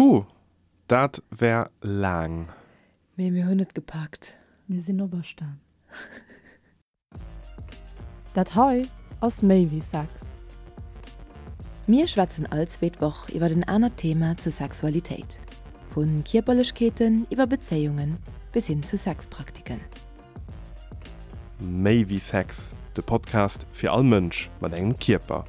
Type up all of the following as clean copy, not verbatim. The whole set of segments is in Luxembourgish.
Puh, dat war laang. Mee mir hunn et gepackt. Mir sinn operstan. Dat hei ass méi wéi Sex. Mir schwätzen all zweet Woch iwwer en anert Thema zur Sexualitéit, vu Kierperlechkeeten iwwer Bezéiungen bis hin zu Sexpraktiken. Méi wéi Sex, de Podcast fir all Mënsch mat engem Kierper.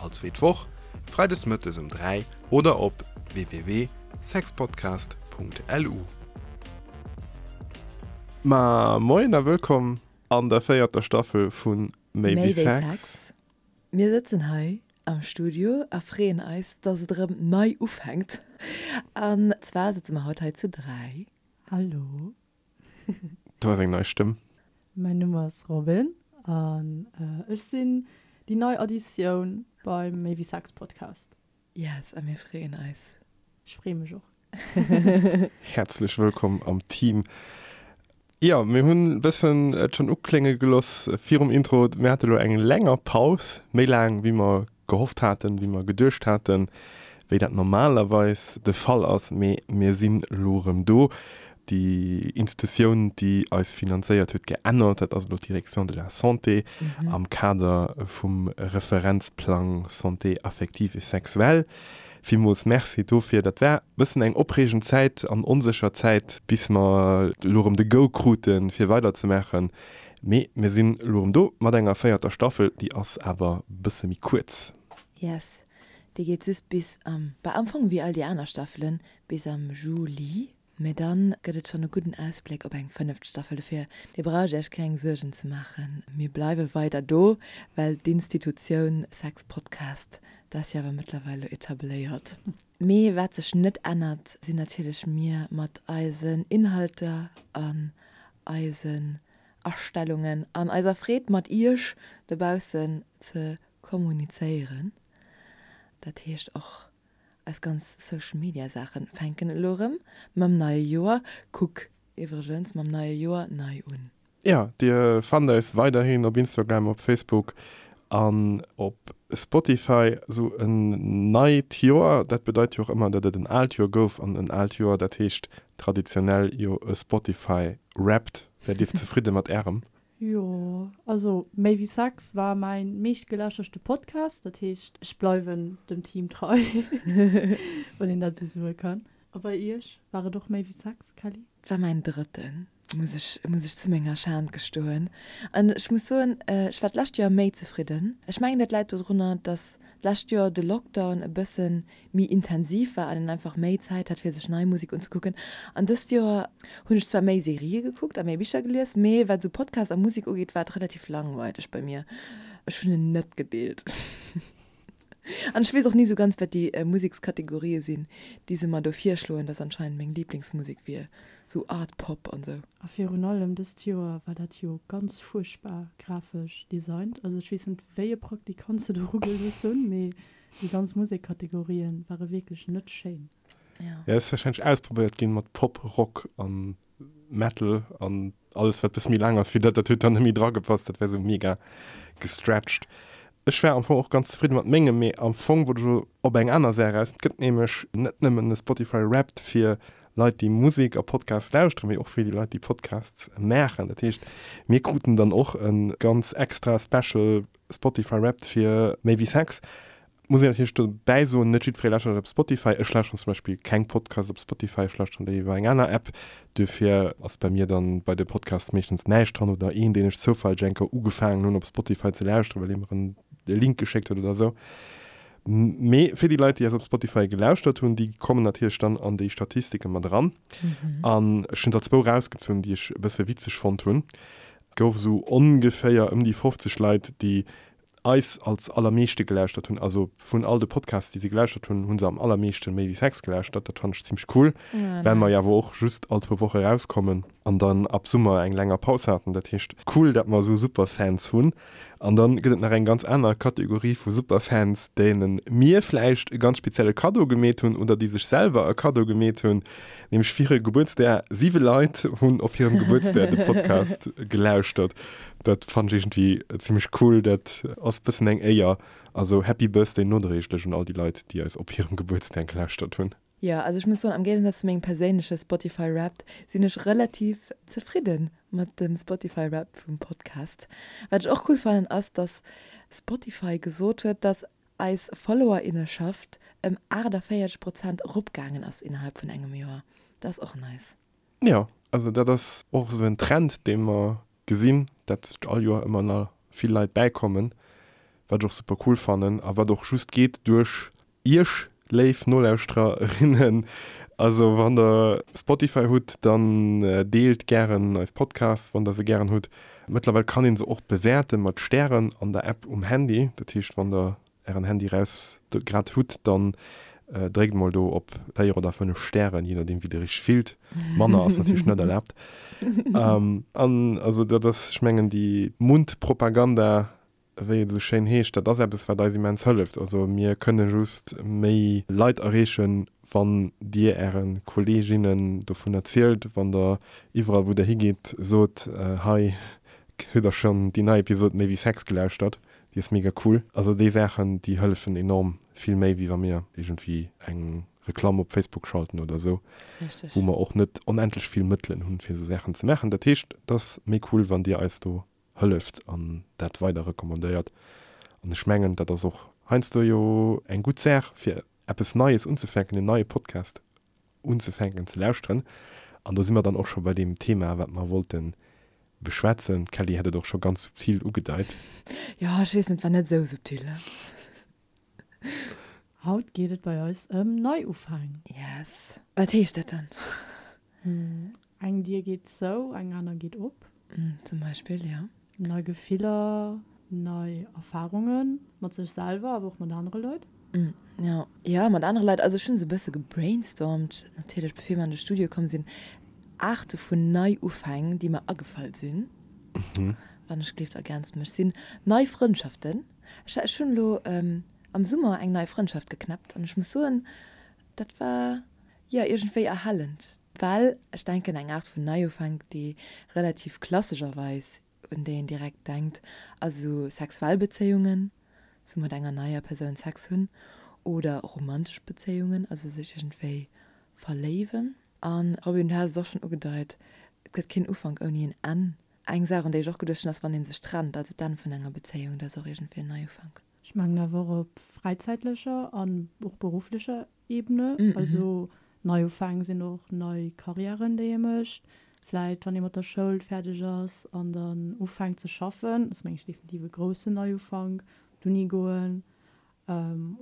All zweet Woch, freides mëttes um 3 oder op www.sexpodcast.lu. Ma moien a wëllkomm an der véierter Staffel vu Méi wéi Sex. Mir sëtzen hei am Studio a freeën eis, dass et erëm nei ufänkt. An zwar sëtze mer haut hei zu 3. Hallo. Do ass eng nei Stëmm. Mäin Numm ass Robin an ech sinn déi nei Additioun beim Méi wéi Sex Podcast. Yes, a mir freeën eis. Ech freeë mech och. Häerzlech wëllkomm am Team. Jo, mir hunn e bëssen et schonn uklénge geloss virum Intro, mir hate lo eng länger Paus, méi laang wéi mer gehofft haten, wéi mer geduecht haten, wéi dat normalerweis de Fall ass, mee mir sinn elo erëm do. Déi Institutioun, déi eis finanzéiert huet, geännert, dat ass elo d'Direction de la Santé am Kader vum Referenzplang Santé affective et sexuelle. Villmools Merci dofir. Dat war e bëssen eng opreegend Zäit an onsécher Zäit, bis mer elo erëm de Go kruten, fir weiderzemaachen. Mee mir sinn elo erëm do mat enger véierter Staffel, déi ass awer bësse méi kuerz. Yes, déi geet just bis am, bah am Fong wéi all déi aner Staffelen, bis am Juli. Mee dann gëtt et schonn e gudden Ausbléck op eng fënneft Staffel. Dofir, dir braucht iech keng Suergen ze maachen, mir bleiwe weider do, well d'Institutioun Sex Podcast, dat ass jo awer mëttlerweil elo etabléiert. Mee wat sech net ännert, sinn natierlech mir mat eisen Inhalter an eisen Astellungen an eiser Freed mat iech dobaussen ze kommunizéieren. Dat heescht och eis ganz Social Media Saachen fänken elo erëm mam neie Joer, kuck iwwregens mam neie Joer nei un. Jo, dir fannt eis weiderhin op Instagram, op Facebook an op Spotify. Sou en neit Joer, dat bedeit jo och ëmmer, datt et en aalt Joer gouf. An en aalt Joer, dat heescht traditionell jo e Spotify Wrapped. Wäert dir zefridde mat ärem? Jo, also Méi wéi Sex war mäin meeschtgelauschterste Podcast, dat heescht ech bleiwen dem Team trei, wann een dat esou soe kann. A bei iech, war et och Méi wéi Sex, Kelly? Et war mäin drëtten, muss ech muss ech zu menger Schan gestoen. An ech muss soen, ech war d'lescht Joer méi zefridden. Ech mengen dat läit dodrunner, dass d'lescht Joer de Lockdown e bësse méi intensiv war an een einfach méi Zäit hat fir sech nei Musek unzekucken. An dëst Joer hunn ech zwar méi Serië gekuckt a méi Bicher gelies, mee wat esou Podcast a Musek ugeet, war et relativ langweileg bei mir. Ech hunn en net gedeelt. An ech weess och ni esou ganz, wat déi Musekskategorië sinn, déi se mer do virschloen, dass anscheinend meng Liblingsmusek wier sou Art Pop an sou. A virun allem dëst Joer war dat jo ganz fuerchtbar grafesch designt. Also ech weess net wéi e Praktikant se do erugelooss hunn, mee déi ganz Musekkategorien ware wierklech net schéin. Ja, ass wahrscheinlech ausprobéiert ginn mat Pop, Rock an Metal an alles wat bësse méi laang ass wéi dat, dat huet dann net méi dra gepasst, dat war sou mega gestretched. Ech war am Fong och ganz zefridde mat mengem, mee am Fong wollt ech elo op eng aner Saach eraus. Et gëtt nämlech net nëmmen e Spotify Wrapped fir Leit déi Musek a Podcasts lauschteren, mee och fir déi Leit déi Podcasts maachen. Dat heescht mir kruten dann och e ganz extra special Spotify Wrapped fir méi wéi Sex. Muss een natierlech dobäi soen, net jiddweree lauschtert op Spotify. Ech lauschteren zum Beispill keng Podcasts op Spotify, ech lauschteren déi iwwer eng aner App. Duerfir ass bei mir dann bei de Podcasts meeschtens näischt dran oder een, deen ech zoufälleg eng Kéier ugefaangen hunn op Spotify ze lauschteren, well ee mer en Link geschéckt huet oder esou. Mee fir déi Leit, déi eis op Spotify gelauschtert hunn, déi kommen natierlech dann an déi Statistike mat eran. An ech hunn der zwou rausgezunn, déi ech e bësse witzeg fonnt hunn. Et gouf esou ongeféier ëm déi 50 Leit, déi eis als allermeeschte gelauschtert hunn, also vun all de Podcasts, déi se gelauschtert hunn, hu se am allermeeschte Méi wéi Sex gelauschtert. Dat fannen ech zimmlech cool, well mer jo awer och just all zwou Woche erauskommen an dann ab Summer eng länger Paus haten. Dat heescht, cool, dat mer esou Superfans hunn. An dann gëtt et nach eng ganz aner Kategorie vu Superfans, deene mir vläicht e ganz spezielle Kaddo gemeet hunn oder déi sech selwer e Kaddo gemeet hunn, nämlech fir hire Gebuertsdag. Siwe Leit hunn op hirem Gebuertsdag de Podcast gelauschtert. Dat fannen ech iergendwéi zimmlech cool. Dat ass bëssen eng Éier. Also Happy Birthday nodréiglech un all déi Leit, déi eis op hirem Gebuertsdag gelauschtert hunn. Jo, also ech muss soen, am Géigensaz zu mengem perséinleche Spotify Wrapped sinn ech relativ zefridde mat dem Spotify Wrapped vum Podcast. Wat ech och cool fannen ass, dass Spotify gesot huet, dass eis Followerinneschaft ëm 48 Prozent eropgaangen ass innerhalb vun engem Joer. Dat ass och nice. Jo, also dat ass och esou en Trend, dee mer gesinn, dat all Joer ëmmer nach vill Leit bäikommen, wat ech och super cool fannen a wat och just geet duerch Iech, léif Nolauschtererinnen. Also wann der Spotify hutt, dann deelt gären eis Podcasts, wann der se gären hutt. Mëttlerweil kann een se och bewäerte mat Stären an der App um Handy. Dat heescht, wann der ären Handy raus grad hutt, dann dréckt mol do op 4 oder 5 Stären, je nodeem wéi der iech fillt. Manner ass natierlech net erlaabt. An also dat ass, ech mengen déi Mundpropaganda, wéi et esou schéin heescht, dat ass eppes wat eis immens hëlleft. Also mir kënne just méi Leit erreechen, wann dir äre Kolleeginnen dovun erzielt, wann der iwwerall wou der higeet sot, hei hutt der schonn déi nei Episod Méi wéi Sex gelauschtert? Déi ass mega cool. Also déi Saachen, déi hëllefen enorm vill méi, wéi wa mir iergendwéi eng Reklamm op Facebook schalten oder esou, wou mer och net onendlech vill Mëttelen hunn, fir esou Saachen ze maachen. Dat heescht, et ass méi cool, wann Dir eis do hëlleft an dat weider recommandéiert. An ech mengen, dat ass och heiansdo jo eng gutt Saach, fir eppes Neies unzefänken, en neie Podcast unzefänken ze lauschteren. An do si mer dann och scho bei deem Thema, wat mer wollte beschwätzen. D'Kelly hat et och scho ganz subtil ugedeit. Jo, ech weess net, war net esou subtil. Haut geet et bei eis ëm Neiufäng. Yes. Wat heescht dat dann? Eng Dier geet zou, eng aner geet op. Zum Beispill, jo. Nei Gefiller, nei Erfarunge mat sech selwer, awer och mat anere Leit. Jo, jo, mat anere Leit. Also ech hunn esou e bësse gebrainstormt natierlech, bevir mer an de Studio komm sinn, Aarte vun Neiufäng, déi mer agefall sinn. Wann ech gleeft, ergänzt mech, sinn nei Frëndschaften. Ech ech hunn elo am Summer eng nei Frëndschaft geknäppt an ech muss soen, dat war, jo, iergendwéi erhellend. Well ech denken, eng Aart vun Neiufank, déi relativ klassescherweis, un déi een direkt denkt, ass esou sexuell Bezéiungen, esou mat enger neier Persoun Sex hunn, oder romantesch Bezéiungen, also sech iergendwéi verléiwen. An Robin, du has et och schonn ugedeit, et gëtt keen Ufank ouni en Enn. Eng Saach, un déi ech och geduecht hunn, ass, wann ee sech trennt, also d'Enn vun enger Bezéiung, dat ass och iergendwéi en Neiufank. Ech mengen awer och op fräizäitlecher an och berufflecher Ebene. Also Neiufäng sinn och nei Karriären, déi ee mécht. Vläit wann ee mat der Schoul fäerdeg ass an dann ufänkt ze schaffen, ass meng ech definitiv e groussen Neiufank, d'Uni goen.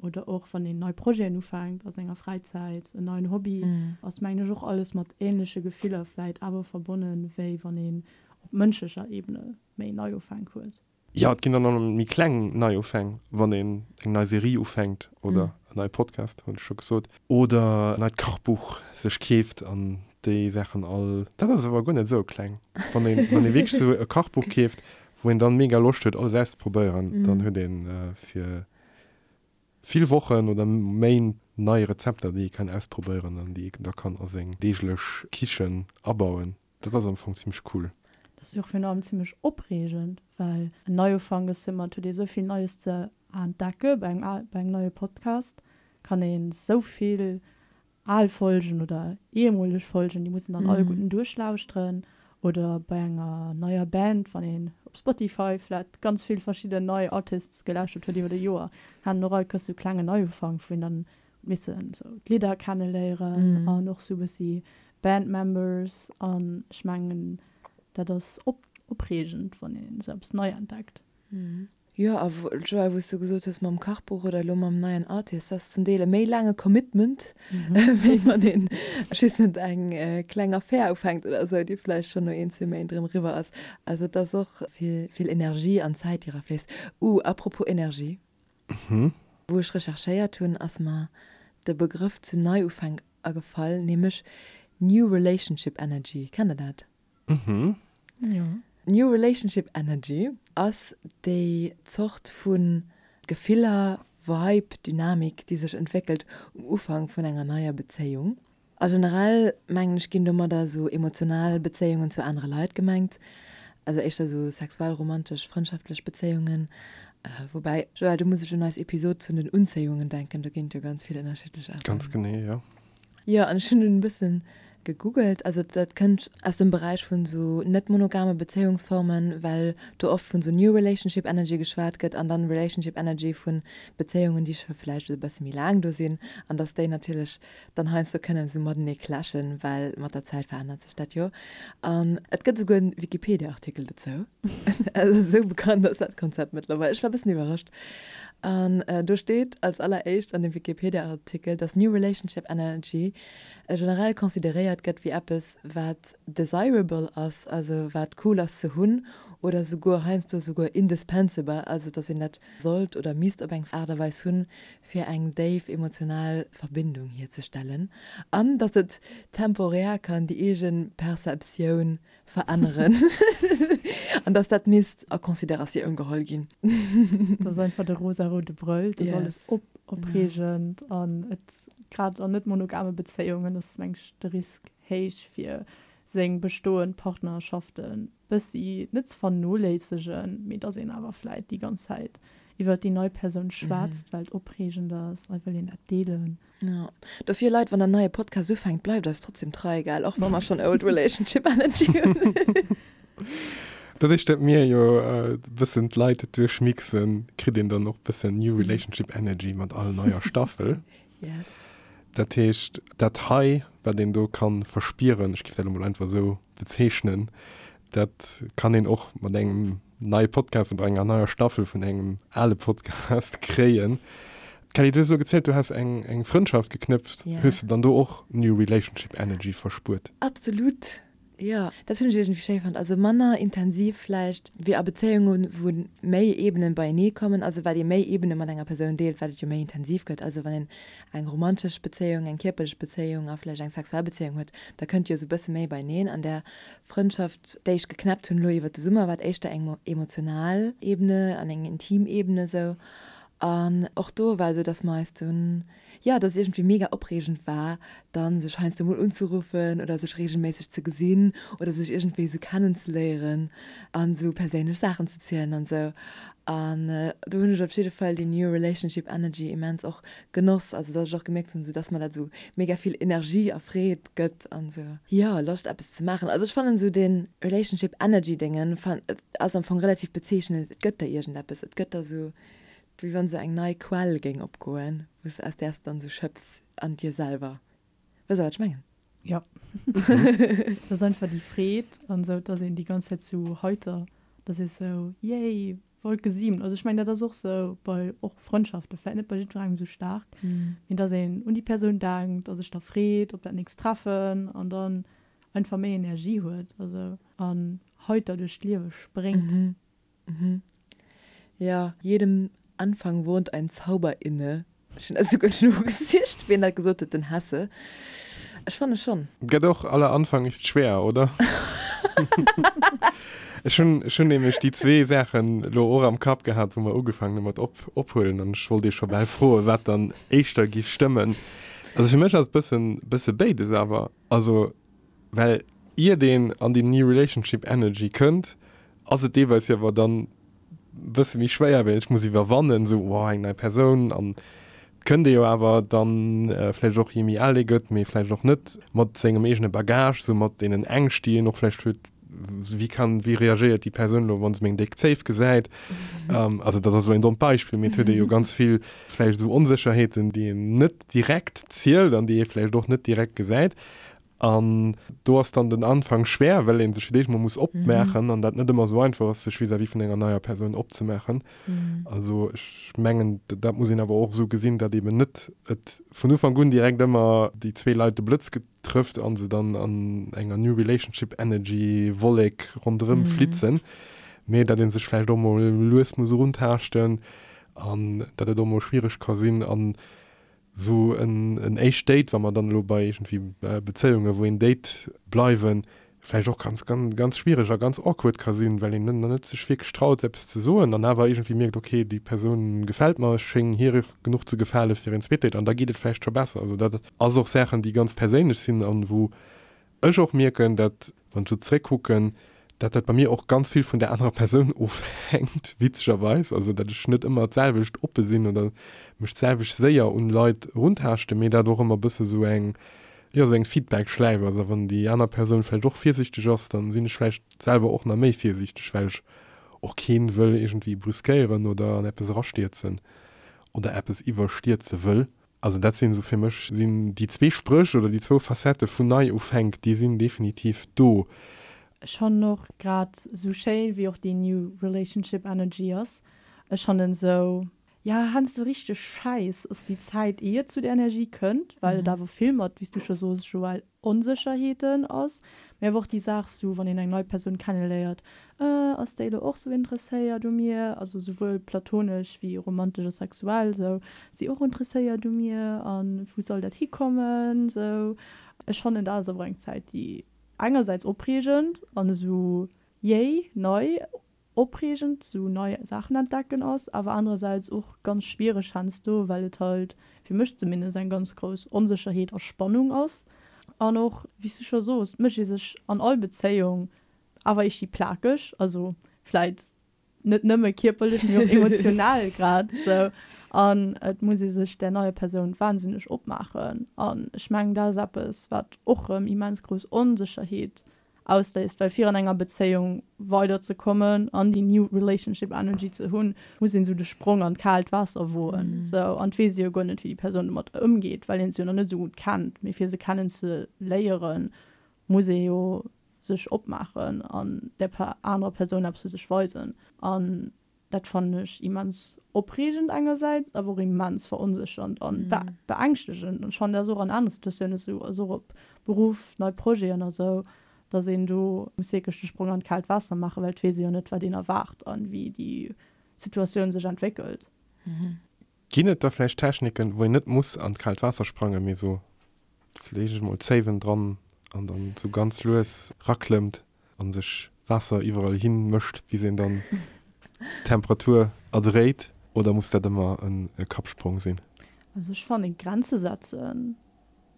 Oder och wann een nei Projeten ufänkt a senger Fräizäit, en neien Hobby, ass mengen ech och alles mat änleche Gefiller vläit awer verbonnen, wéi wann een op mënschlecher Ebene méi Neiufänk huet. Jo, et ginn dann och méi kleng Neiufäng, wann een eng nei Serie ufänkt oder en neie Podcast, hunn ech scho gesot, oder en neit Kachbuch sech keeft an déi Saachen all. Dat ass awer guer net esou kleng. Wann een, wann ee wierklech esou e Kachbuch keeft, wou een dann mega Loscht huet alles auszeprobéieren, dann huet een fir vill Wochen oder Méint nei Rezepter, déi ee kann ausprobéieren an déi ee da kann a seng deeglech Kichen abauen. Dat ass am Fong zimmlech cool. Dat ass jo och virun allem zimmlech opreegend, well en Neiufank ass ëmmer, et huet ee sou vill Neies ze entdecke. Bei engem, bei engem neie Podcast kann ee sou vill al Folgen oder ehemoleg Folgen, déi muss een dann alleguerten duerchlauschteren. Oder bei enger neier Band, wann een op Spotify vläit ganz vill verschidden nei Artists gelauschtert huet iwwer e Joer, hat en och all Kéiers sou klengen Neiufank, wou een dann missen sou d'Lidder kenneléieren an och sou bëssi Band Members an ech mengen dat ass op opreegend wann een sou eppes nei entdeckt. Jo a Joël wou s du gesot hues mam Kachbuch oder elo mam neien Artist, dat ass zum Deel e méi laange Commitment wéi wann een just net eng kleng Affär ufänkt oder sou déi vläicht schonn no een zwee Méint erëm eriwwer ass. Also et ass och vill vill Energie an Zäit déi erafléisst. Uh apropos Energie. Wou ech recherchéiert hunn, ass mer de Begrëff zu Neiufänk agefall, nämlech New Relationship Energy. Kennt der dat? Jo. New Relationship Energy ass déi Zort vu Gefiller, Vibe, Dynamik, déi sech entwéckelt um Ufank vun enger neier Bezéiung. A generell, mengen ech, ginn domadder esou emotional Bezéiungen zu anere Leit gemengt, also éischter esou sexuell, romantesch, frëndschaftlech Bezéiungen. Woubäi, Joël, do muss ech un eis Episod zu den Unzéiungen denken, do ginn et jo ganz vill ënnerschiddlech Aarten. Ganz genee, jo. Jo, an ech hunn dunn e bëssen gegoogelt. Also dat kënnt aus dem Beräich vun esou net monogame Bezéiungsformen, well do oft vun esou New Relationship Energy geschwat gëtt an dann Relationship Energy vun Bezéiungen, déi scho vläicht e bësse méi laang do sinn an dass déi natierlech dann heiansdo kënnen esou matenee clashen, well mat der Zäit verännert sech dat jo. An et gëtt esouguer en Wikipedia-Artikel dozou. Also esou bekannt ass dat Konzept mëttlerweil. Ech war e bëssen iwwerrascht. An do steet als alleréischt an dem Wikipedia-Artikel, dass New Relationship Energy generell consideréiert gëtt wéi eppes, wat desirable ass, also wat cool ass ze hunn, oder souguer heiansdo souguer indispensable, also dass een dat sollt oder misst op eng Aart a Weis hunn, fir eng déif emotional Verbindung hierzestellen, an datt et temporär kann déi eege Perceptioun veränneren an datt dat misst a Consideratioun geholl ginn. Dat ass einfach de rosaroude Brëll, dat ass alles op, opreegend an et, grad an net monogame Bezéiungen ass, meng ech, de Risk héich fir seng bestoend Partnerschaften bëssi net ze vernoléissegen, mee dass een awer vläit déi ganz Zäit iwwert déi nei Persoun schwätzt, well et opreegend ass a wëll een dat deelen. Jo, dofir Leit, wann der neie Podcast ufänkt, bleift eis trotzdem trei, gell, och wa mer schonn Old Relationship Energy hunn. Doduerch dat mir jo e bëssen d'Leit duerchmixen, kritt een dann och bëssen New Relationship Energy mat all neier Staffel. Yes. Dat heescht, dat hei, wat een do ka verspieren, ech géif dat elo mol einfach esou bezeechnen, dat kann een och mat engem neie Podcast oder enger neier Staffel vun engem ale Podcast kréien. Kelly, du hues elo gezielt, du häss eng, eng Frëndschaft geknëpft. Ja. Hues de dann do och New Relationship Energy verspuert? Absolut, jo. Dat hunn ech iergendwéi schéi fonnt. Also manner intensiv vläicht wéi a Bezéiungen, wou méi Ebenen beienee kommen. Also wat ee méi Ebene mat enger Persoun deelt, wat et jo méi intensiv gëtt. Also wann een eng romantesch Bezéiung, eng kierperlech Bezéiung a vläicht eng sexuell Bezéiung huet, da kënnt jo esou e bësse méi beieneen. An där Frëndschaft, déi ech geknäppt hunn elo iwwer de Summer, war et éischter eng emotional Ebene an eng intim Ebene esou. An och do war esou, dass mer eis dunn, jo, dass et iergendwéi mega opreegend war, dann sech heiansdo mol unzeruffen oder sech reegelméisseg ze gesinn oder sech iergendwéi esou kennenzeléieren an esou perséinlech Saachen ze zielen an esou. An do hunn ech op jidde Fall déi New Relationship Energy immens och genoss, also dass ech och gemierkt hunn, esou dass mer dat esou mega vill Energie a Freed gëtt an esou, jo, Loscht eppes ze maachen. Also ech fannen esou dee Relationship Energy Déngen ass am Fong relativ bezeechnend, et gëtt der iergendeppes, et gëtt der esou, wéi wann esou eng nei Quell géing opgoen, wou s aus där s de dann esou schöpfs an dir selwer. Wësst der wat ech mengen? Jo. Dat ass einfach déi Freed an esou, dass een déi ganz Zäit sou heiter, dass ee sou, yay, Wolke 7. Also ech mengen dat ass och sou bei och Frëndschaften, vläit net bei jiddwerengem sou staark, mee dass een un déi Persoun denkt a sech da freet op dat nächst Treffen an dann einfach méi Energie huet, also an heiter duerch d'Liewe spréngt. Jo, jedem Anfang wohnt ein Zauber inne. Ech hunn dat esouguer nogesicht, wien dat gesot huet, den Hesse. Ech fanne schonn. Gett och aller Anfang ist schwer, oder? Ech hunn, ech hunn nämlech déi zwee Saachen elo och am Kapp gehat, wou mer ugefaangen hu mat op, ophuelen an ech wollt iech scho bal froen, wat dann éischter giff stëmmen. Also fir mech ass et bëssen, bësse béides awer. Also well iert een an déi New Relationship Energy kënnt, ass et deelweis jo awer dann bësse méi schwéier, well ech muss iwwerwannen, esou, wow, eng nei Persoun an et kënnt ee jo awer dann vläicht och, je méi al ee gëtt, mee vläicht och net, mat sengem eegene Bagage, esou mat deenen Ängscht, déi een och vläicht huet, wéi kann, wéi reagéiert déi Persoun elo, wa se meng déck Zéif gesäit? Also dat ass elo een dommt Beispill, mee et huet ee jo ganz vill vläicht esou Onsécherheeten, déi een net direkt zielt an déi ee vläicht och net direkt gesäit. An do ass dann den Anfang schwer, well ee sech fir d'éischt mol muss opmaachen an dat net ëmmer esou einfach ass, sech vis-à-vis vun enger neier Persoun opzemaachen. Also ech mengen, dat muss een awer och esou gesinn, datt eeben net et vun Ufank un direkt ëmmer déi zwee Leit de Blëtz trëfft a se dann an enger New Relationship Energy Wollek ronderëm flitzen, mee datt ee sech vläicht och mol lues muss eruntaaschten an datt et och mol schwiereg ka sinn. An Sou en éischt Date, wa mer dann elo bei iergendwéi Bezéiunge wou een date bleiwen, vläicht och ganz, ganz, ganz schwiereg a ganz awkward ka sinn, well een net net sech wierklech traut eppes ze soen an awer iergendwéi mierkt, ok, déi Persoun gefält mer, ech schéngen hir genuch ze gefale fir een zweet Date an da geet et vläicht scho besser. Also dat ass och Saachen, déi ganz perséinlech sinn an wou ech och mierken, dat, wann ech sou zréckkucken, dat dat bei mir och ganz vill vun der anerer Persoun ofhänkt, witzegerweis, also dat ech net ëmmer d'selwecht oppe sinn oder mech d'selwecht séier un Leit eruntaaschten, mee dat och ëmmer bësse sou eng. Jo, esou eng Feedback-Schläif ass. A wann déi aner Persoun vläicht och virsiichteg ass, dann sinn ech vläicht selwer och nach méi virsiichteg, well ech och keen wëll iergendwéi brüskéieren oder an eppes erastierzen oder eppes iwwerstierze wëll. Also dat sinn esou fir mech sinn déi zwee Spréch oder déi zwou Facettë vun Neiufänk, déi sinn definitiv do. Ech fannen och grad esou schéin wéi och déi New Relationship Energy ass, ech fannen esou, jo heiansdo richteg schäiss ass déi Zäit ier et zu der Energie kënnt, well et awer vill mat, wéi s du scho soos Joël, Onsécherheeten ass, mee awer och déi Saach sou, wann een eng nei Persoun kenneléiert, äh, ass déi elo och sou interesséiert u mir, also souwuel platonesch wéi romantesch a sexuell, sou, ass si och interesséiert u mir a wou soll dat hikommen, sou. Ech fannen dat ass awer eng Zäit, déi engersäits opreegend an esou yay, nei, opreegend sou nei Saachen entdecken ass, awer anerersäits och ganz schwiereg heiansdo, well et halt, fir mech zumindest, eng ganz grouss Onsécherheet a Spannung ass. An och, wéi s du scho soos, mécht ee sech an all Bezéiung awer iergdi plakeg, also vläit net nëmme kierperlech, mee och emotional grad sou. An et muss ee sech där neier Persoun wahnsinneg opmaachen. An ech mengen, dat ass eppes, wat och rëm immens grouss Onsécherheet ausléist, well fir an enger Bezéiung weider ze kommen an déi new relationship energy ze hunn, muss een esou de Sprong an d'kaalt Waasser woen, sou, an et weess ee jo guer net wéi déi Persoun domat ëmgeet, well een se jo nach net esou gutt kennt, mee fir se kennen ze léieren, muss ee jo sech opmaachen an där anerer Persoun eppes vu sech weisen an Dat fannen ech immens opreegend engersäits, awer och immens veronséchernd an beängschtegend. An ech fannen, dat ass och an anere Situatiounen esou, also och op Beruff, nei Projeten a sou, datt een do muss wierklech de Sprong an d'kaalt Waasser maachen, well et weess ee jo net, wat een erwaart an wéi déi Situatioun sech entwéckelt. Ginn et da vläicht Techniken, wou een net muss an d'kaalt Waasser sprangen, mee sou vläicht emol d'Zéiwen dran an dann sou ganz lues raklëmmt an sech Waasser iwwerall hin mëscht, bis een dann d'Temperatur erdréit? Oder muss dat ëmmer e Kappsprong sinn? Also ech fannen Grenze setzen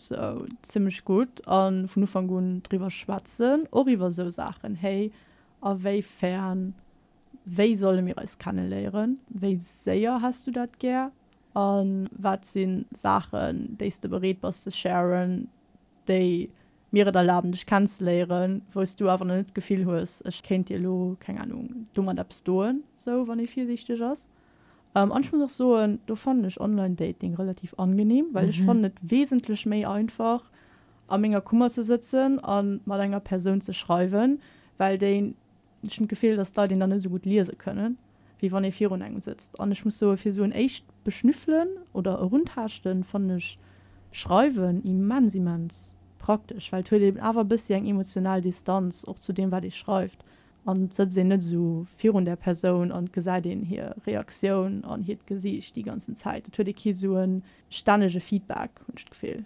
sou zimmlech gutt a vun Ufank un driwwer schwätzen, och iwwer sou Saachen, hey a wéi fern, wéi solle mir eis kenneléieren, wéi séier häss du dat gär a wat si Saachen déi s de bereet bass ze sharen, déi mir et erlaben dech kennzeléieren, wou s du awer nach net d'Gefill hues, ech kéint dir elo, keng Ahnung, domat eppes doen, sou wann ee virsiichteg ass. An ech muss och soen, do fannen ech Online-Dating relativ angenehm, well ech fannen et wesentlech méi einfach a menger Kummer ze sëtzen a mat enger Persoun ze schreiwen, well déi Ech hunn d'Gefill, dass d'Leit een dann net esou gutt liese kënnen, wéi wann ee virun engem sëtzt. An ech muss soen, fir esou en éischt Beschnüffelen oder Eruntaaschten fannen ech Schreiwen immens, immens praktesch, well et huet een awer e bëssi eng emotional Distanz och zu deem, wat ee schreift. An et sëtzt een net esou virun där Persoun an et gesäit een hir Reaktioun an hiert Gesiicht déi ganzen Zäit. Et huet ee kee esou e stännege Feedback, hunn ech d'Gefill.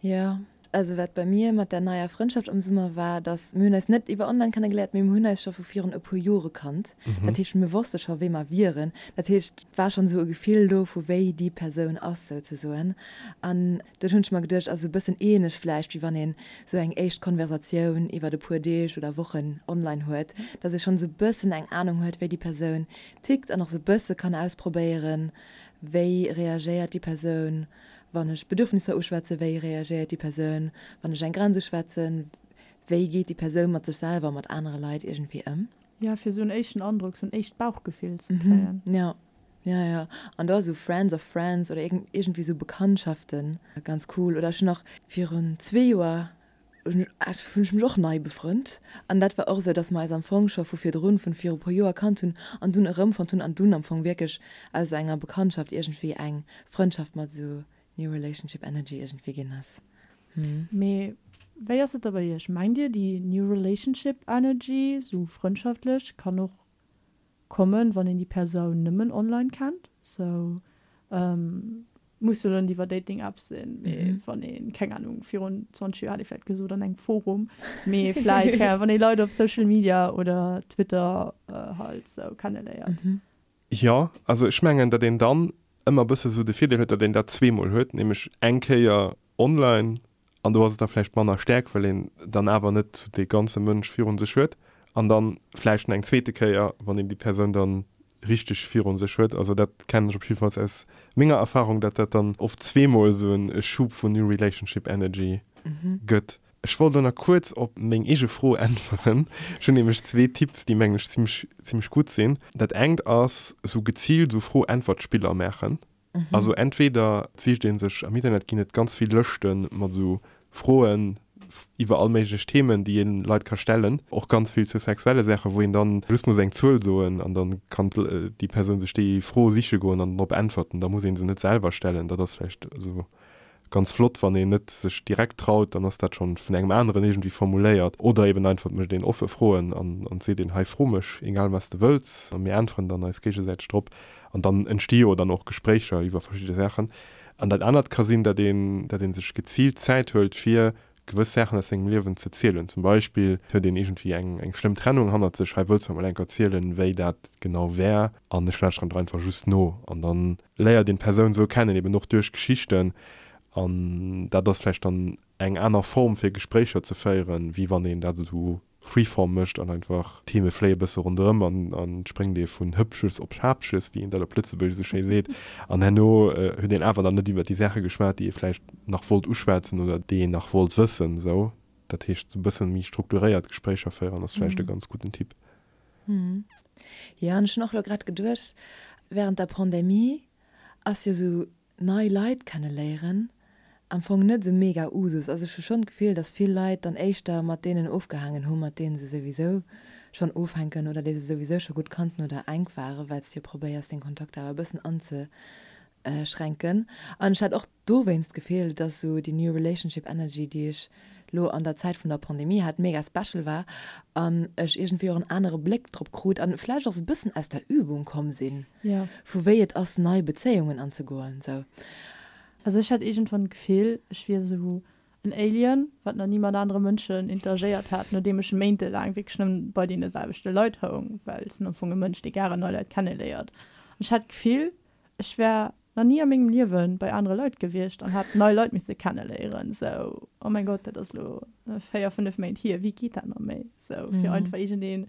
Jo, also wat bei mir mat der neier Frëndschaft am Summer war, dass mir hunn eis net iwwer online kennegeléiert, mee mir hunn eis scho vu virun e puer Jore kannt. Dat heescht, mir wosste scho wee mer wieren. Dat heescht, et war schonn esou e Gefill do vu wéi déi Persoun ass souzesoen. An dunn hunn ech mer geduecht, also e bëssen ähnlech vläicht wéi wann een esou eng éischt Konversatioun iwwert e puer Deeg oder Wochen online huet, dass ee schonn esou e bëssen eng Anung huet wéi déi Persoun tickt an och esou e bësse kann ausprobéieren, wéi reagéiert déi Persoun Wann ech Bedürfnisser uschwätzen, wéi reagéiert déi Persoun? Wann ech eng Grenz uschwätzen, wéi geet déi Persoun mat sech selwer a mat anere Leit iergendwéi ëm? Jo, fir esou en éischten Androck, esou en éischt Bauchgefill ze kréien. Jo, jo, jo. An do ass esou Friends of Friends oder iergendwéi esou Bekanntschaften ganz cool. Oder ech hunn och virun zwee Joer hunn ech mech och nei befrënnt an dat war och esou, dass mer eis am Fong scho vu virdrun, vun viru puer Joer kannt hunn an dunn erëmfonnt hunn an dunn am Fong wierklech aus enger Bekanntschaft iergendwéi eng Frëndschaft mat esou New Relationship Energy iergendwéi ginn ass. Mee wéi ass et da bei iech? Mengt dir déi New Relationship Energy, esou frëndschaftlech, kann och kommen, wann een déi Persoun nëmmen online kennt? Sou Muss jo net iwwer Dating Apps sinn, mee wann een, keng Ahnung, virun 20 Joer hätt ee vläit gesot an engem Forum, mee vläit, keng Ahnung, wann ee Leit op Social Media oder Twitter halt sou kenneléiert. Jo, also ech mengen, datt een dann ëmmer e bësse sou de Virdeel huet, datt een dat zweemol huet, nämlech eng Kéier online an do ass et da vläicht manner staark, well een dann awer net dee ganze Mënsch virun sech huet an dann vläicht nach eng zweete Kéier, wann een déi Persoun dann. richteg virun sech huet. Also dat kennen ech op jiddefalls aus menger Erfahrung, dat dat dann oft zweemol esou en Schub vun New Relationship Energy gëtt. Ech wollt elo nach kuerz op meng eege Fro äntweren. Ech hunn nämlech zwee Tipps, déi mengen ech zimmlech zimmlech gutt sinn. Dat engt ass esou geziilt esou Fro-Äntwert-Spiller maachen. Also entweder sicht ee sech, am Internet ginn et ganz vill Lëschte mat esou Froen iwwer all méiglech Themen, déi een Leit ka stellen, och ganz vill zu sexuelle Saachen, wou een dann just muss eng Zuel soen an dann kann déi Persoun sech déi Fro siche goen an drop äntwerten. Da muss ee se net selwer stellen. Dat ass vläicht esou ganz flott, wann een net sech direkt traut, dann ass dat schonn vun engem aneren iergendwéi formuléiert. Oder eben einfach, et mécht een offe Froen an an seet een, hei fro mech, egal wat s de wëlls, a mir äntweren dann eis géigesäiteg drop. An dann entsti jo dann och Gespréicher iwwer verschidde Saachen. An dat anert ka sinn, datt een, datt ee sech geziilt Zäit huelt, fir gewëss Saachen aus sengem Liewen ze zielen. Zum Beispill huet een iergendwéi eng, eng schlëmm Trennung hannert sech, hei wëlls de mer mol enk erzielen, wéi dat genau war, an ech lauschteren der einfach just no. An dann léiert een d'Persoun esou kennen, eben och duerch Geschichten. An dat ass vläicht dann eng aner Form fir Gespréicher ze féieren, wéi wann een dat esou Freeform mécht an einfach d'Theme fléie bësse ronderëm an an et spréngt ee vun Hëppches op Schaappches, wéi een dat op Lëtzebuergesch esou schéi seet. An herno huet een awer dann net iwwer déi Saache geschwat, déi ee vläicht nach wollt uschwätzen oder déi een nach wollt wëssen. Esou, dat heescht, esou e bësse méi strukturéiert Gespréicher féieren ass vläicht e ganz gudden Tipp. Jo, an ech hunn och elo grad geduecht, während der Pandemie ass jo esou nei Leit kenneléieren am Fong net esou mega Usus. Also ech hu schonn d'Gefill, dass vill Leit dann éischter mat deenen ofgehaangen hu mat deenen se souwisou schonn ofhänken oder déi se souwisou scho gutt kannten oder enk waren, well s de jo probéiers deng Kontakter awer e bëssen anzeschränken. An ech hat och dowéinst d'Gefill, dass esou déi New Relationship Energy, déi ech lo an der Zäit vun der Pandemie hat, mega special war an ech iergendwéi och en anere Bléck drop krut an vläicht och sou e bëssen aus der Übung komm sinn, vu wéi et ass nei Bezéiungen anzegoen sou. Also ech hat iergendwann d'Gefill, ech wier sou en Alien, wat nach ni mat anere Mënschen interagéiert hat, nodeem ech méintelaang wierklech nëmmen bei deene selwechte Leit houng, well ech sinn am Fong e Mënsch, dee gären nei Leit kenneléiert. An ech hat d'Gefill, Ech wär nach ni a mengem Liewe bei anere Leit gewiescht an hätt nei Leit misse kenneléieren. Sou, oh mäin Gott, dat ass elo 4, 5 Méint hier, wéi geet dat nach méi? Sou, fir einfach iergendee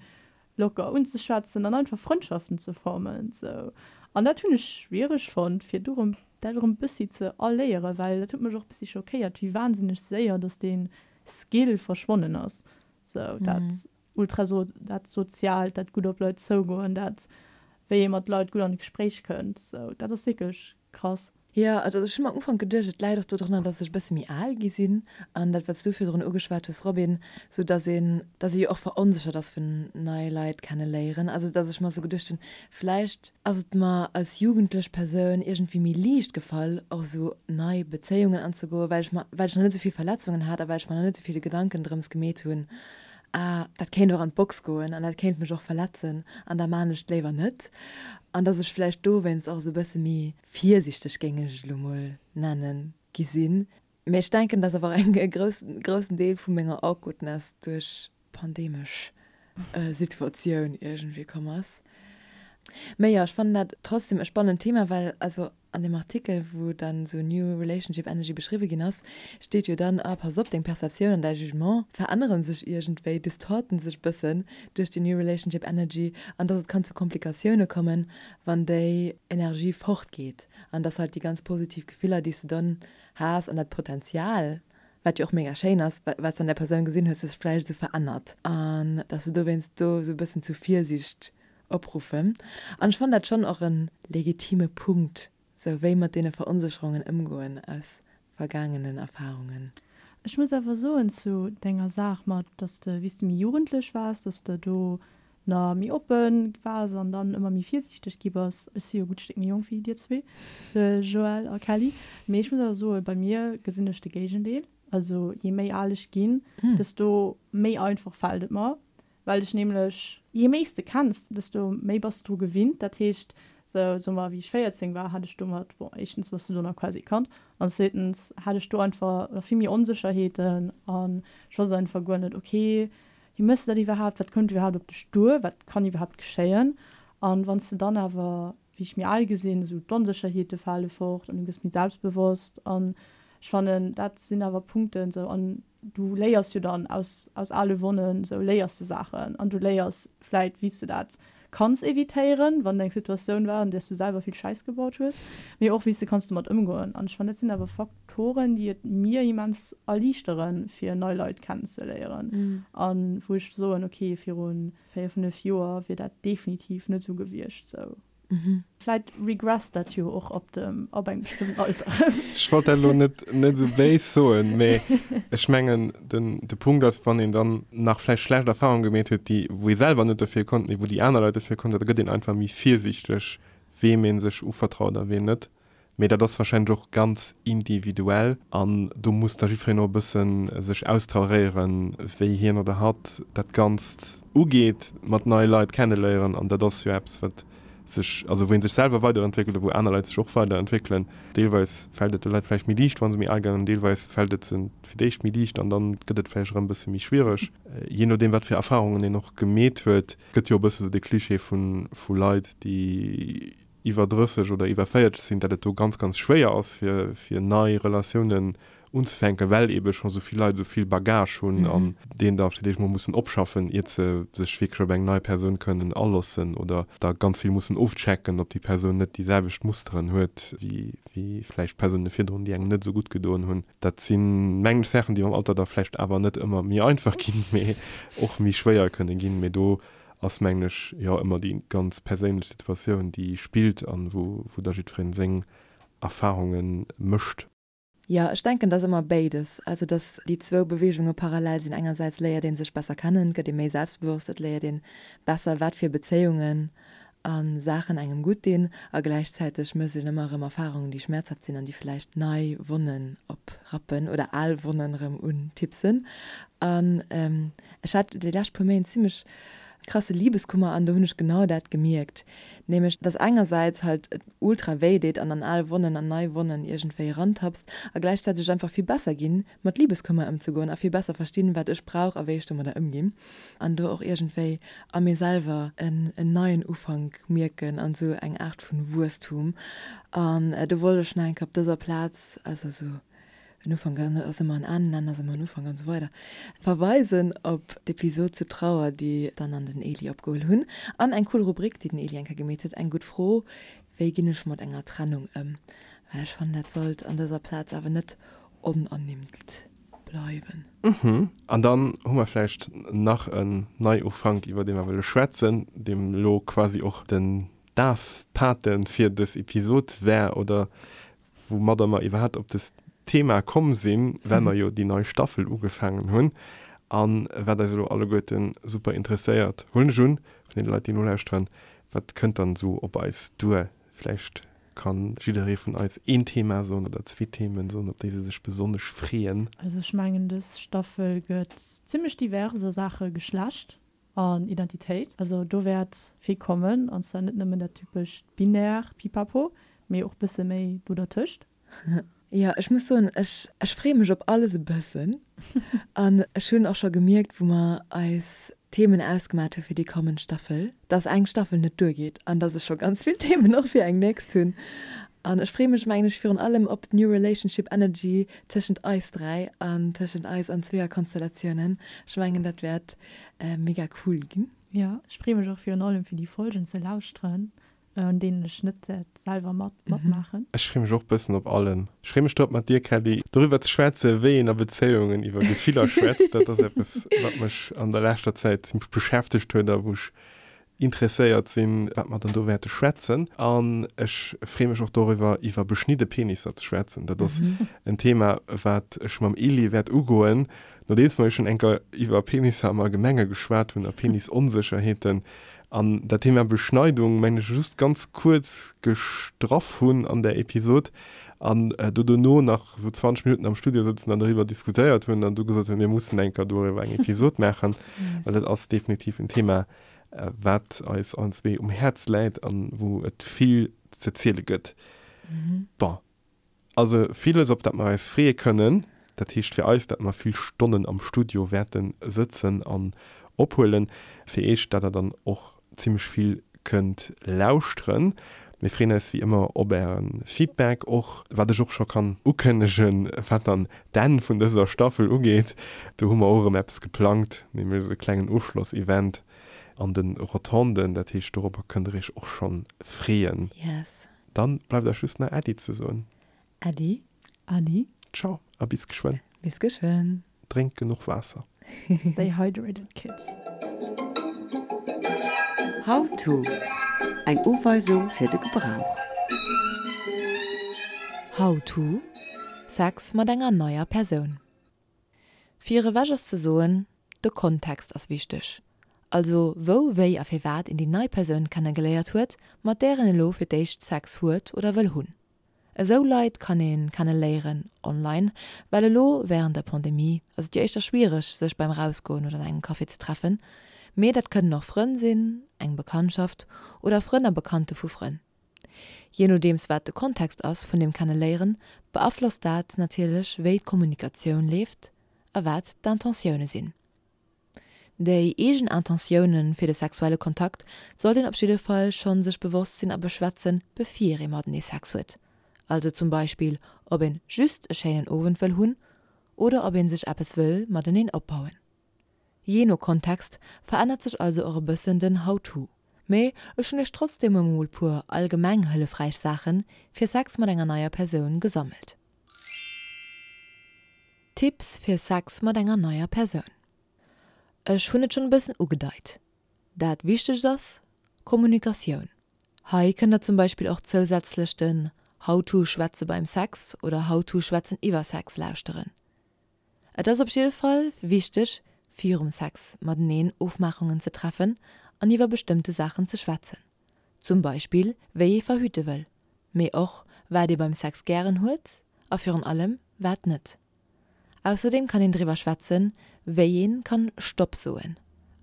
locker unzeschwätzen an einfach Frëndschaften ze formen. Sou, an dat hunn ech schwiereg fonnt, fir do erëm dat erëm bëssi ze erléieren, well dat huet mech och bëssi schockéiert, wéi wahnsinneg séier dass dee Skill verschwonnen ass. Sou, dat Ultra so dat Soziaalt, dat gutt op Leit zougoen, dat wéi ee mat Leit gutt an d'Gespréich kënnt, sou dat ass wierklech krass. Jo, also ech hunn am Ufank geduecht, et läit och dodrunner, dass ech e bësse méi al gi sinn an dat, wat s du virdrun ugeschwat hues, Robin, sou dass een, dass ee jo och veronséchert ass vun nei Leit kenne léieren. Also dass ech mer sou geduecht hunn, vläicht ass et mer als jugendlech Persoun iergendwéi méi liicht gefall, och sou nei Bezéiungen anzegoen, well ech mer, well ech nach net sou vill Verletzungen hat a well ech mer nach net sou vill Gedanken drëms gemeet hunn, ah, dat kéint och an d'Box goen an dat kéint mech och verletzen an da maan ech et léiwer net. An dass ech vläicht dowéinst och esou e bësse méi virsichteg, géing ech et elo mol nennen, gi sinn. Mee ech denken, dass awer och e groussen Deel vu menger Awkwardness duerch d'pandemesch Situatioun iergendwéi komm ass. Mee jo, ech fannen dat trotzdem e spannend Thema, well also An dem Artikel, wou dann esou New Relationship Energy beschriwwe ginn ass, steet jo dann, ah, pass op, deng Perceptioun an däi Jugement verännere sech iergendwéi, distorten sech bëssen duerch déi New Relationship Energy an dass et kann zu Komplikatioune kommen, wann déi Energie fortgeet an dass halt déi ganz positiv Gefiller, déi s de dann has an dat Potenzial, wat jo och mega schéin ass, wat s de an där Persoun gesinn hues, sech vläicht esou verännert an dass de dowéinst do esou e bëssen zu Virsiicht Opruffen. An ech fannen dat schonn och e legitime Punkt, sou wéi mat deene Veronsécherungen ëmgoen aus vergaangenen Erfahrungen. Ech muss awer soen zu denger Saach mat, dass de wéi s de méi jugendlech waars, dass de do na méi oppe waars an dann ëmmer méi virsiichteg gi bass. Ech si jo e gutt Stéck méi jonk wéi dir zwee, de Joël a Kelly, mee ech muss awer soen, bei mir gesinn ech de Géigendeel. Also jee méi al ech ginn, desto méi einfach fält et mer, Well ech nämlech, jee méi s de kenns, desto méi bass de dru gewinnt. Dat heescht, sou, soe mer, wéi ech 14 war, hat ech domat, bon, éischtens bass du do nach quasi e Kand an zweetens hat ech do einfach nach vill méi Onsécherheeten an ech wosst einfach guer net, ok, wéi méchs de dat iwwerhaapt, wat kënnt iwwerhaapt op dech duer, wat kann iwwerhaapt geschéien? An wann s de dann awer, wéi ech méi al gi sinn, esou d'Onsécherheete fale fort an du gëss méi selbstbewosst an ech fannen, dat sinn awer Punkten, sou, an du léiers jo dann aus, aus ale Wonnen, sou léiers de Saachen an du léiers vläit, wéi s de dat. kanns evitéieren, wann eng Situatioun war, an där s du selwer vill Schäiss gebaut hues, mee och wéi s de kanns domat ëmgoen. An ech fannen, dat sinn awer Faktoren, déi et mir immens erliichteren, fir nei Leit kennenzeléieren. A wou ech soen, ok, viru 4, 5 Joer wier dat definitiv net esou gewiescht. Sou. Vläit regresst dat jo och ab dem, ab engem bestëmmten Alter. Ech wollt dat elo net, net esou béis soen, mee ech mengen, den, de Punkt ass, wann een dann nach vläicht schlecht Erfahrungen gemeet huet, déi, wou ee selwer net dofir konnt, mee wou déi aner Leit dofir konnten, da gëtt een einfach méi virsiichteg, weem ee sech uvertraut a ween net. Mee dat ass warscheinlech och ganz individuell an do muss da jiddwereen och e bësse sech austaréieren, wéi hien oder hatt dat Ganzt ugeet mat neie Leit kenneléieren. An dat ass jo eppes, wat sech, also wou ee sech selwer weiderentwéckelt a wou aner Leit sech och weiderentwéckelen. Deelweis fält et de Leit vläicht méi liicht, wa se méi al ginn, an deelweis fält et se fir d'éischt méi liicht an dann gëtt et vläicht erëm e bësse méi schwiereg, jee nodeem wat fir Erfarungen een och gemeet huet. Et gëtt jo e bësse sou de Klischee vu Leit, déi iwwer 30 oder iwwer 40 sinn, dat et do ganz, ganz schwéier ass, fir, fir nei Relatiounen unzefänken, well eebe scho sou vill Leit esou vill Bagage hunn an deen da fir d'éischt mol mussen opschaffen, iert se sech wierklech op eng nei Persoun kënnen alossen oder da ganz vill mussen ofchecken, ob déi Persoun net déi selwecht Musteren huet wéi, wéi vläicht Persoune virdrun, déi engem net esou gutt gedoen hunn. Dat sinn, mengen ech, Saachen, déi mam Alter da vläicht awer net ëmmer méi einfach ginn, mee och méi schwéier kënne ginn. Mee do ass mengen ech jo ëmmer déi ganz perséinlech Situatioun déi spillt an wou wou da jiddwereen seng Erfahrunge mécht. Jo, ech denken dass ëmmer béides, also dass déi zwou Beweegunge parallel sinn. Engersäits léiert ee sech besser kennen, gëtt ee méi selbstbewosst, et léiert een besser wat fir Bezéiungen a Saachen engem gutt dinn a gläichzäiteg mécht een ëmmer erëm Erfahrungen déi schmäerzhaft sinn an déi vläicht nei Wonnen oprappen oder al Wonnen erëm untipsen. An Ech hat déi lescht puer Méint zimmlech krasse Liebeskummer an do hunn ech genau dat gemierkt, nämlech dass engersäits halt et ultra wéi deet an an al Wonnen an nei Wonnen iergendwéi erantappst a gläichzäiteg ech einfach vill besser ginn mat Liebeskummer ëmzegoen a vill besser verstinn wat ech brauch a wéi ech domadder ëmginn an do och iergendwéi a mir selwer en neien Ufank mierken an esou eng Aart vun Wuesstum an do wollt ech nach eng Kéier op dëser Plaz also esou En Ufank ass ëmmer en Enn, en Enn ass ëmmer en Ufank an esou weider. Verweisen op d'Episod zu Trauer, déi d'Anne an den Eli opgeholl hunn. An eng cool Rubrik, déi den Eli eng Kéier gemeet huet, Eng gutt Fro, Wéi ginn ech mat enger Trennung ëm? Well ech fannen, dat sollt an dëser Plaz awer net onernimmt bleiwen. Uhmm. An dann hu mer vläicht nach en Neiufank, iwwer dee mer wëlle schwätzen, deem elo quasi och den Dafpate fir dës Episod war, oder woumadder mer iwwerhaapt op dëst Thema komm sinn, well mer jo déi nei Staffel ugefaangen hunn a wat eis elo alleguerte super interesséiert, huelen ech un, vun deene Leit, déi nolauschteren, wat kënnt dann esou op eis duer? Vläicht ka jidderee vun eis een Thema soen oder zwee Themen soen, op déi se sech besonnesch freeën. Also ech mengen, dës Staffel gëtt zimmlech divers a Saache Geschlecht. An Identitéit. Also do wäert vill kommen, an zwar net nëmmen dat typescht binärt Pipapo, mee och bësse méi do dertëscht. Jo, ech muss soen, ech ech freeë mech op alles e bëssen. An ech hunn och scho gemierkt, wou mer eis Themen ausgemat hu fir déi kommend Staffel, dass eng Staffel net duergeet an dass ech scho ganz vill Themen och fir eng nächst hunn. An ech freeë mech, mengen ech, virun allem op d'New Relationship Energy tëschent eis 3 an tëschent eis an Zweeërkonstellatiounen. Ech mengen, dat wäert mega cool ginn. Jo, ech freeë mech och virun allem fir déi Folgen ze lauschteren, un deenen ech net wäert selwer mat matmaachen. Ech freeë mech och bëssen op allem. Ech freeë mech drop mat dir, Kelly, doriwwer ze schwätzen, wéi een a Bezéiungen iwwer Gefiller schwätzt. Dat ass eppes, wat mech an der leschter Zäit zimmlech beschäftegt huet a wou ech interesséiert sinn, wat mer dann do wäerte schwätzen. An ech freeë mech och doriwwer, iwwer beschnidde Penisser ze schwätzen. Dat ass en Thema, wat ech mam Elie wäert ugoen, nodeems mer jo schonn eng Kéier iwwer Penisser am Allgemenge geschwat hunn a Penisonsécherheeten. An dat Thema Beschneidung, mengen ech, just ganz kuerz gestraff hunn an där Episod an do dono nach esou 20 Minutten am Studio sëtzen an doriwwer diskutéiert hunn an du gesot hunn, mir mussen eng Kéier doriwwer eng Episod maachen, well dat ass definitiv en Thema, wat eis allen zwee um Häerz läit an wou et vill ze ziele gëtt. Bon, also villes op dat mer eis freeë kënnen. Dat heescht fir eis, dat mer vill Stonnen am Studio wäerte sëtzen an ophuelen. Fir iech, dat der dann och zimmlech vill kënnt lauschteren. Mir freeën eis wéi ëmmer op äre Feedback, och wat ech och scho kann ukënnegen, wat dann d'Enn vun dëser Staffel ugeet. Do hu mer och erëm eppes geplangt, nämlech esou e klengen Ofschlossevent. An de Rotonden. Dat heescht, dorobber kënnt der iech och schonn freeën. Yes. Dann bleift eis just nach Äddi ze soen. Äddi. Äddi. Ciao a bis geschwënn. Bis geschwënn. Drénkt genuch Waasser. Stay hydrated kids. How to, Eng Uweisung fir de Gebrauch. How to, Sex mat enger neier Persoun. Fir ewech ass ze soen, de Kontext ass wichteg. Also wou, wéi a firwat een déi nei Persoun kennegeléiert huet, mat där een elo fir d'éischt Sex huet oder wëll hunn. Esou Leit kann ee kenne léieren online, well elo wärend der Pandemie ass et jo éischter schwiereg sech beim Rausgoen oder an engem Café ze treffen. Mee dat kënnen och Frënn sinn, eng Bekanntschaft oder Frënn a Bekannte vu Frënn. Jee nodeems wat de Kontext ass vun dem Kenneléieren, beaflosst dat natierlech wéi d'Kommunikatioun leeft a wat d'Intentioune sinn. Déi eegen Intentioune fir de sexuelle Kontakt sollt een op jidde Fall schonn sech bewosst sinn a beschwätzen, bevir ee matenee Sex huet. Also zum Beispill ob een just e schéinen Owend wëll hunn oder ob een sech eppes wëll mateneen opbauen. Jee no Kontext verännert sech also och e bëssen den How-to. Mee ech hunn iech trotzdeem emol puer allgemeng hëllefräich Saache fir Sex mat enger neier Persoun gesammelt. Tipps fir Sex mat enger neier Persoun. Ech hunn et schonn e bëssen ugedeit, dat wichtegst ass Kommunikatioun. Hei kënnt der zum Beispill och zousätzlech den How to Schwätze beim Sex oder How to Schwätzen iwwer Sex lauschteren. Et ass op jidde Fall wichteg virum Sex mateneen Ofmaachungen ze treffen an iwwer bestëmmte Saachen ze schwätzen. Zum Beispill wéi ee verhüte wëll, mee och wat ee beim Sex gären huet a virun allem wat net. Ausserdeem kann een driwwer schwätzen, wéi een kann Stopp soen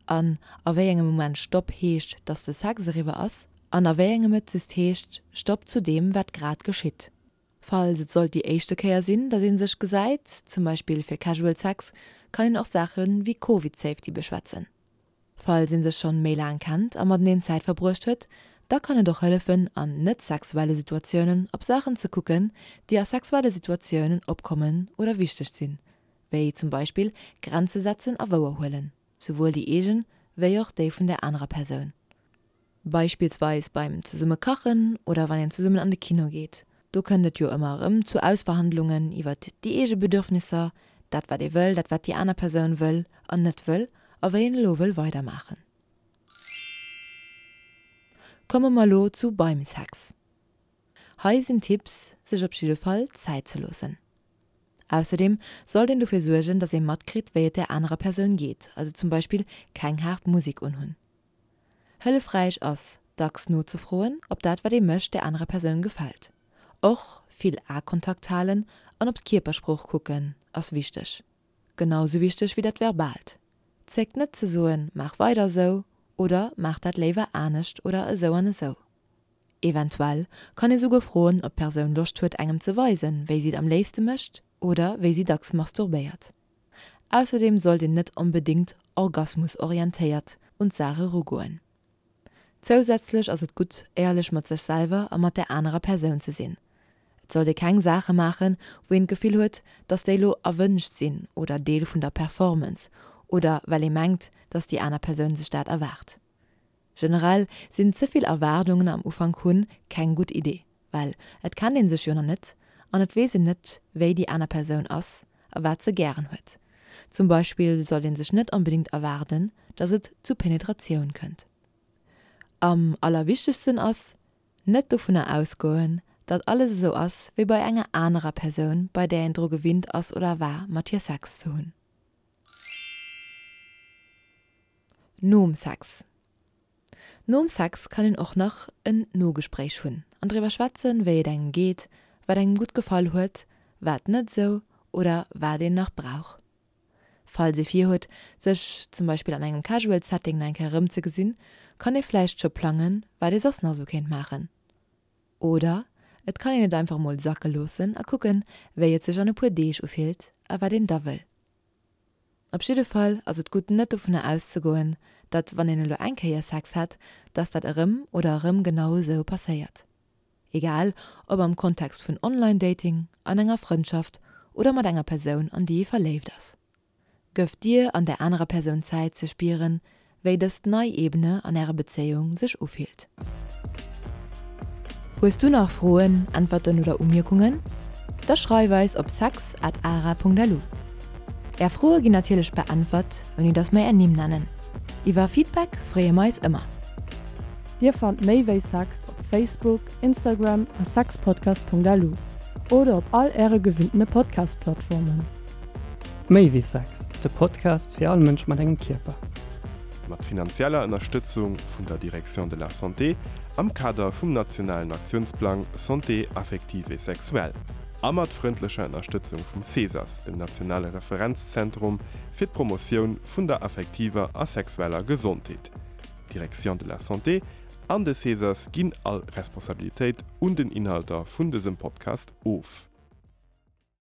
an a wéi engem Moment Stopp heescht, dass de Sex eriwwer ass an a wéi engem et just heescht Stopp zu deem wat grad geschitt. Falls et sollt déi éischte Kéier sinn, dass ee sech gesäit, zum Beispill fir Casual Sex, kann een och Saache wéi Covid Safety beschwätzen. Falls een sech schonn méi laang kennt a mateneen Zäit verbruecht huet, da kann et och hëllefen an net-sexuelle Situatiounen op Saachen ze kucken, déi a sexuelle Situatiounen opkommen oder wichteg sinn, wéi zum Beispill Grenze setzen a wouerhuelen, souwuel déi eegen wéi och déi vun der anerer Persoun. Beispillsweis beim zesumme kachen oder wann een zesummen an de Kino geet. Do kënnt et jo ëmmer erëm zu Ausverhandlungen iwwert déi eege Bedürfnisser, dat wat ee wëll, dat wat déi aner Persoun wëll an net wëll a wéi een elo wëll weidermaachen. Komme mer elo zu beim Sex. Hei sinn Tipps, sech op jidde Fall Zäit ze loossen. Ausserdeem sollt een dofir suergen, dass ee matkritt, wéi et där anerer Persoun geet, also zum Beispill keng haart Musek unhunn. Hëllefräich ass, dacks nozefroen, ob dat wat ee mécht der anerer Persoun gefält. Och vill Aekontakt halen an op d'Kierpersprooch kucken ass wichteg. Genau sou wichteg wéi dat Verbaalt. Zéckt net ze soen, maach weider esou oder maach dat léiwer anescht oder esou an esou. Eventuell kann ee souguer froen, ob d'Persoun Loscht huet engem ze weisen, wéi si et am léifste mécht oder wéi si dacks masturbéiert. Ausserdeem sollt een net onbedéngt orgasmusorientéiert un d'Saach erugoen. Zousätzlech ass et gutt, éierlech mat sech selwer a mat där anerer Persoun ze sinn. Et sollt ee keng Saache maachen, wou een d'Gefill huet, dass déi lo erwënscht sinn oder Deel vun der Performance oder well ee mengt, dass déi aner Persoun sech dat erwaart. Generell sinn ze vill Erwaardungen am Ufank hunn keng gutt Idee, well et kennt een sech jo nach net an et weess een net wéi déi aner Persoun ass a wat se gären huet. Zum Beispill sollt een sech net onbedingt erwaarden, dass et zu Penetratioun kënnt. Am allerwichtegsten ass, net dovunner ausgoen, datt alles esou ass wéi bei enger anerer Persoun bei där een dru gewinnt ass oder war mat hir Sex ze hunn. Nom Sex Nom Sex kann een och nach en Nogespréich hunn an driwwer schwätzen, wéi et engem geet, wat engem gutt gefall huet, wat net esou oder wat een nach brauch. Falls ee virhuet, sech zum Beispill an engem casual Setting nach eng Kéier erëmzegesinn, kann ee vläicht scho plangen, wat ee soss nach esou kéint maachen. Oder et kann een et einfach mol sacke loossen a kucken, wéi et sech an e puer Deeg ufillt a wat een da wëll. Op jidde Fall ass et gutt net dovunner auszegoen, datt wann een elo eng Kéier Sex hat, datt dat erëm oder erëm genau esou passéiert. Egal ob am Kontext vun Online-Dating, an enger Frëndschaft oder mat enger Persoun an déi ee verléift ass. Gëff dir an där anerer Persoun Zäit ze spieren, Wéi dëst nei Ebene an ärer Bezéiung sech ufillt. Hues du nach Froen, Äntwerten oder Umierkungen? Da schreif eis op sex at ara.lu. Är Froe ginn natierlech beäntwert, ouni dass mer är Nimm nennen. Iwwer Feedback freeë mer eis ëmmer. Dir fannt méi wéi Sex op Facebook, Instagram a sexpodcast.lu oder op all äre gewinntene Podcast-Plattformen. Méi wéi Sex, de Podcast fir all Mënsch mat engem Kierper. Mat finanzieller Ënnerstëtzung vun der Direction de la Santé am Kader vum nationalen Aktiounsplang Santé affective et sexuelle a mat frëndlecher Ënnerstëtzung vum CESAS, dem nationale Referenzzentrum fir d'Promotioun vun der affektiver a sexueller Gesondheet. D'Direction de la Santé an de CESAS ginn all Responsabilitéit un den Inhalter vun dësem Podcast of.